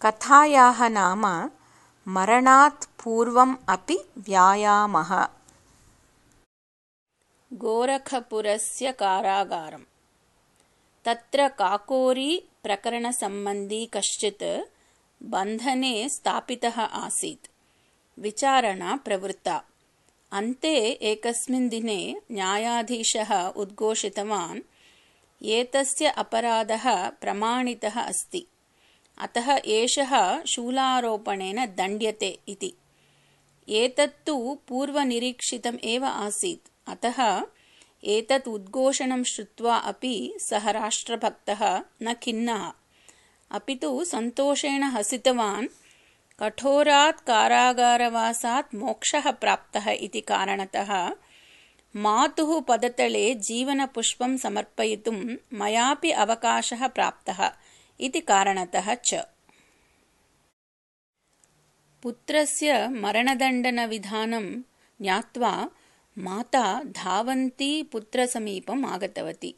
कथायाः नाम मरणात् पूर्वम् अपि व्यायामः। गोरखपुरस्य कारागारम्। तत्र काकोरी प्रकरणसम्बन्धी कश्चित् बन्धने स्थापितः आसीत्। विचारणा प्रवृत्ता। अन्ते एकस्मिन् दिने न्यायाधीशः उद्घोषितवान्, एतस्य अपराधः प्रमाणितः अस्ति, अतः एषः शूलारोपणेन दण्ड्यते इति। एतत्तु पूर्वनिरीक्षितम् एव आसीत्, अतः एतत् उद्घोषणं श्रुत्वा अपि सः राष्ट्रभक्तः न खिन्नः, अपि तु सन्तोषेण हसितवान्। कठोरात् कारागारवासात् मोक्षः प्राप्तः इति कारणतः मातुः पदतले जीवनपुष्पं समर्पयितुं मयापि अवकाशः प्राप्तः इति कारणतः च। पुत्रस्य मरणदण्डनविधानं ज्ञात्वा माता धावन्ती पुत्रसमीपम् आगतवती।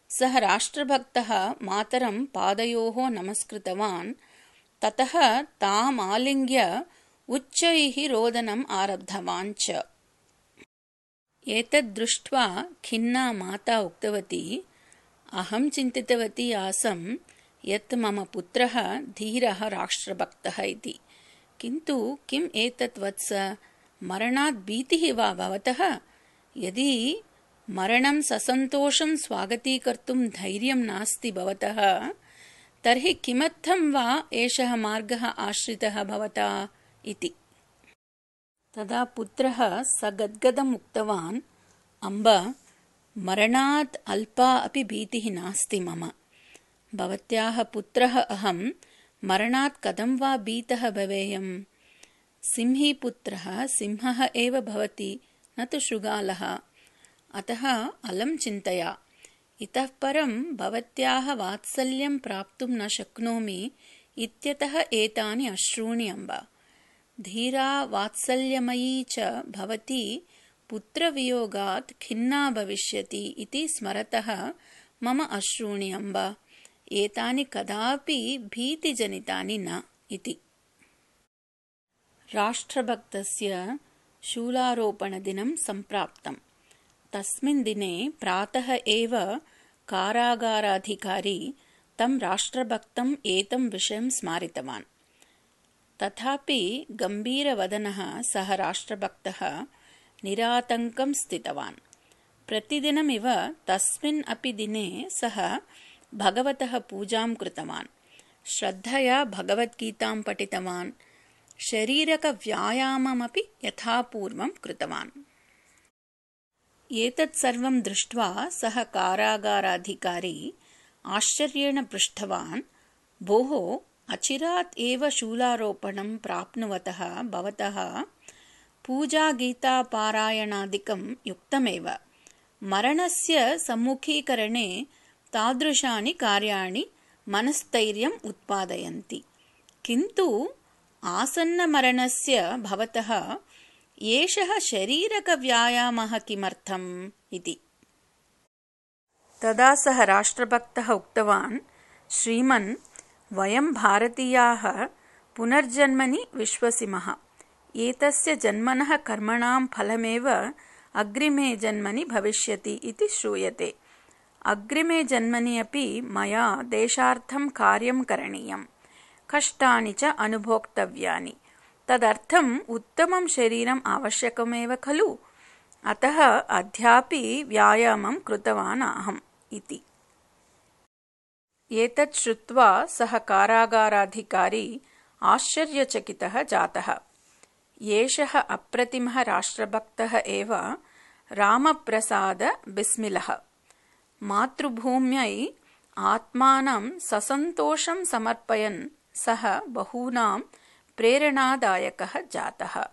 सः राष्ट्रभक्तः मातरं पादयोः नमस्कृतवान्, ततः ताम् आलिङ्ग्य उच्चैः रोदनम् आरब्धवान् च। एतद् दृष्ट्वा खिन्ना माता उक्तवती, अहं चिन्तितवती आसम् यत् मम पुत्रः धीरः राष्ट्रभक्तः इति, किन्तु किम् एतत् वत्स, मरणात् भीतिः वा भवतः? यदि मरणं ससन्तोषं स्वागतीकर्तुं धैर्यं नास्ति भवतः, तर्हि किमर्थं वा एषः मार्गः आश्रितः भवता इति। तदा पुत्रः सगद्गदम् उक्तवान्, अम्ब, मरणात् अल्पा अपि भीतिः नास्ति मम। भवत्याः पुत्रः अहं, मरणात् कथं वा भीतः भवेयम्? सिंहीपुत्रः सिंहः एव भवति, न तु शृगालः। अतः अलं चिन्तया। इतः परं भवत्याः वात्सल्यं प्राप्तुं न शक्नोमि इत्यतः एतानि अश्रूणि अम्ब। धीरा वात्सल्यमयी च भवती पुत्रवियोगात् खिन्ना भविष्यति इति स्मरतः मम अश्रूणि अम्ब। एतानि कदापि भीतिजनितानि न इति। राष्ट्रभक्तस्य शूलारोपणदिनं सम्प्राप्तम्। तस्मिन् दिने प्रातः एव कारागाराधिकारी तं राष्ट्रभक्तम् एतं विषयं स्मारितवान्। तथापि गम्भीरवदनः सः राष्ट्रभक्तः निरातङ्कं स्थितवान्। प्रतिदिनमिव तस्मिन् अपि दिने सः भगवतः पूजां कृतवान्, श्रद्धया भगवद्गीतां पठितवान्, शरीरकव्यायाममपि यथापूर्वं कृतवान्। एतत् सर्वं दृष्ट्वा सः कारागाराधिकारी आश्चर्येण पृष्टवान्, भोः, अचिरात् एव शूलारोपणं प्राप्नुवतः भवतः पूजागीतापारायणादिकं युक्तमेव। मरणस्य सम्मुखीकरणे तादृशानि कार्याणि मनस्थैर्यम् उत्पादयन्ति, किन्तु आसन्नमरणस्य भवतः एषः शरीरकव्यायामः किमर्थम् इति। तदा सः राष्ट्रभक्तः उक्तवान्, श्रीमन्, वयं भारतीयाः पुनर्जन्मनि विश्वसिमः। एतस्य जन्मनः कर्मणां फलमेव अग्रिमे जन्मनि भविष्यति इति श्रूयते। अग्रिमे जन्मनि अपि मया देशार्थं कार्यं करणीयम्, कष्टानि च अनुभोक्तव्यानि। तदर्थम् उत्तमं शरीरम् आवश्यकमेव खलु? अतः अद्यापि व्यायामं कृतवान् अहम् इति। एतत् श्रुत्वा सः कारागाराधिकारी आश्चर्यचकितः जातः। एषः अप्रतिमः राष्ट्रभक्तः एव रामप्रसाद बिस्मिलः। मातृभूम्यै आत्मानं ससन्तोषं समर्पयन् सः बहूनां प्रेरणादायकः जातः।